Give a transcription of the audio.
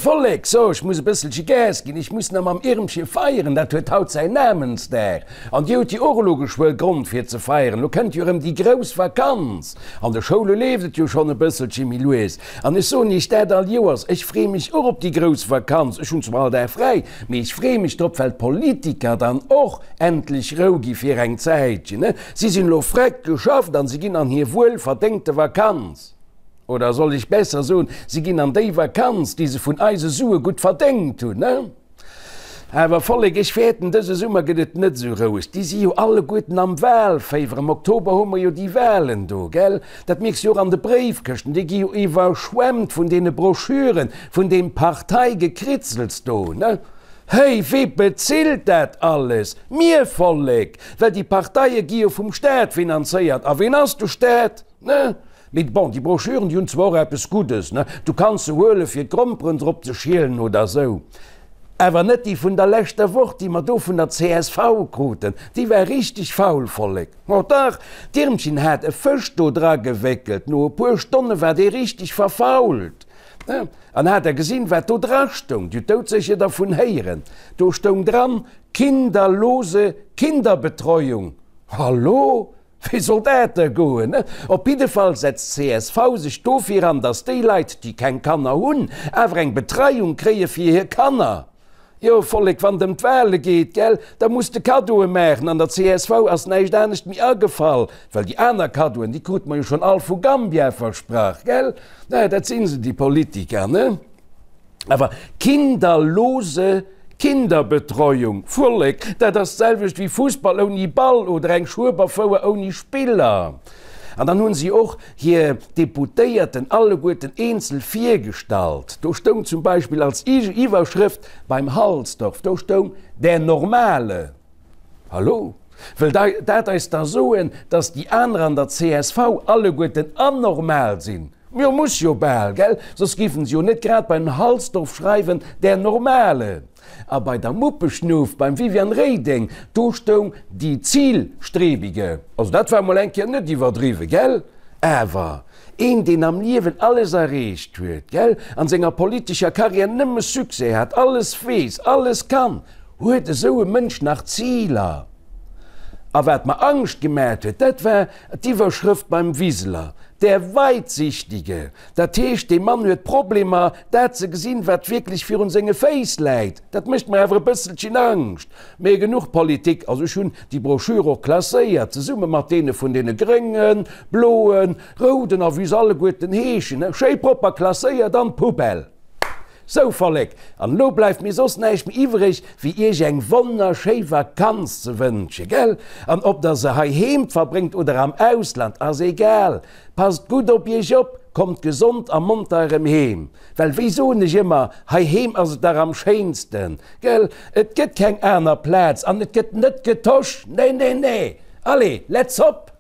Vollek, so, ech muss e bësselche Gas ginn, ech muss nach mam Irmche feieren, dat huet haut säin Namensdag. An dir hutt jo och elo geschwë Grond fir ze feieren, lo kënnt jo erëm déi grouss Vakanz. An de Schoule leeft et jo schonn e bësselche méi lues. An ech soen iech dat all Joers, ech freeë mech och op déi grouss Vakanz. Ech hunn zwar all Dag fräi, mee ech freeë mech drop, well d'Politiker dann och endlech Rou gi fir eng Zäitchen. Si sinn elo freck geschafft an si ginn an hir wuel verdéngte Vakanz. Oder soll ech besser soen, si ginn an déi Vakanz, déi se vun eise Sue gutt verdéngt hunn. Awer Vollek, ech fäerten, dëse Summer gëtt et net esou roueg. Déi si jo alleguerten am Wahlféiwer. Am Oktober hu mer jo déi Wahlen do, gell? Dat mierks jo och an de Bréifkëschten, déi gi jo iwwerschwemmt vun deene Broschüren, vun deem Parteigekritzels do, ne? Héi, wee bezilt dat alles? Mir, Vollek! Well déi Parteie gi jo vum Staat finanzéiert. A ween ass de Staat? Ne? Mee bon, déi Broschüren, déi hunn zwar och eppes Guddes, ne? Du kanns se huelen, fir d'Gromperen drop ze schielen oder esou. Awer net déi vun der leschter Woch, déi mer do vun der csv kruten. Déi war richteg faul, Vollek. Oh dach, d'Irmchen hat e Fësch do dra gewéckelt. No e puer Stonne war dee richteg verfault. Ne? An hat Der gesinn, wat do dra stoung? Dir hutt doudsécher dervun héieren. Do stoung dran, Kinderlose Kinderbetreuung. Hallo? Wéi soll dat da goen? Op jidde Fall setzt csv sech dofir an, datt déi Leit, déi keng Kanner hunn, awer eng Betreiung kréie fir hir Kanner. Jo, Vollek, wann et ëm d'Wahle geet, gell, da muss de Kaddoe maachen. An der csv ass näischt anescht méi agefall, well déi aner Kaddoen, déi krute mer jo schonn all vu Gambia versprach, gell? Naja, dat si se, déi Politiker, ne? Awer kinderlose Kinderbetreuung, Vollek, dat ass d'selwecht wéi Fussball ouni Ball oder eng Schueberfouer ouni Spiller. An dann hunn si och hir Deputéierten alleguerten eenzel virgestallt. Do stoung zum Beispill als Iwwerschrëft beim Halsdorf, do stoung Der Normale. Hallo? Wëll dat eis da soen, dass déi aner an der csv alleguerten anormal sinn? Jo, muss jo bal, gell? Soss géifen se jo net grad beim Halsdorf schreiwen, der Normale. A bei der Muppeschnuff, beim Viviane Reding, do stoung die Zielstrebige. Also dat war mol eng Kéier net iwwerdriwwen, gell? Awer een, deen am Liewen alles erreecht huet, gell, an senger politescher Karriär nëmme Succès hat, alles weess, alles kann, Huet esou e Mënsch nach Ziler? A wat mer Angscht gemaacht huet, dat war d'Iwwerschrëft beim Wiseler, Der Weitsichtige. Dat heescht, dee Mann huet Problemer, dat ze gesinn, wat wierklech virun senge Féiss läit. Dat mécht mer awer e bësselchen Angscht. Mee genuch Politik. Also ech hunn déi Broschür och klasséiert, zesumme mat deene vun deene Gréngen, Bloen, Rouden a wéi se alleguerten heeschen, schéi propper klasséiert an d'Poubelle. Sou Vollek, an elo bleift mir soss näischt méi iwwreg, wéi iech eng wonnerschéi Vakanz ze wënsche, gell? An ob der se heiheem verbréngt oder am Ausland, ass egal, passt gutt op iech op, kommt gesond a monter erëm heem, well wéi soen ech ëmmer, heiheem ass et dach am schéinsten, gell? Et gëtt keng aner Plaz an et gëtt net getosch, nee, nee, nee! Allez, let's hop!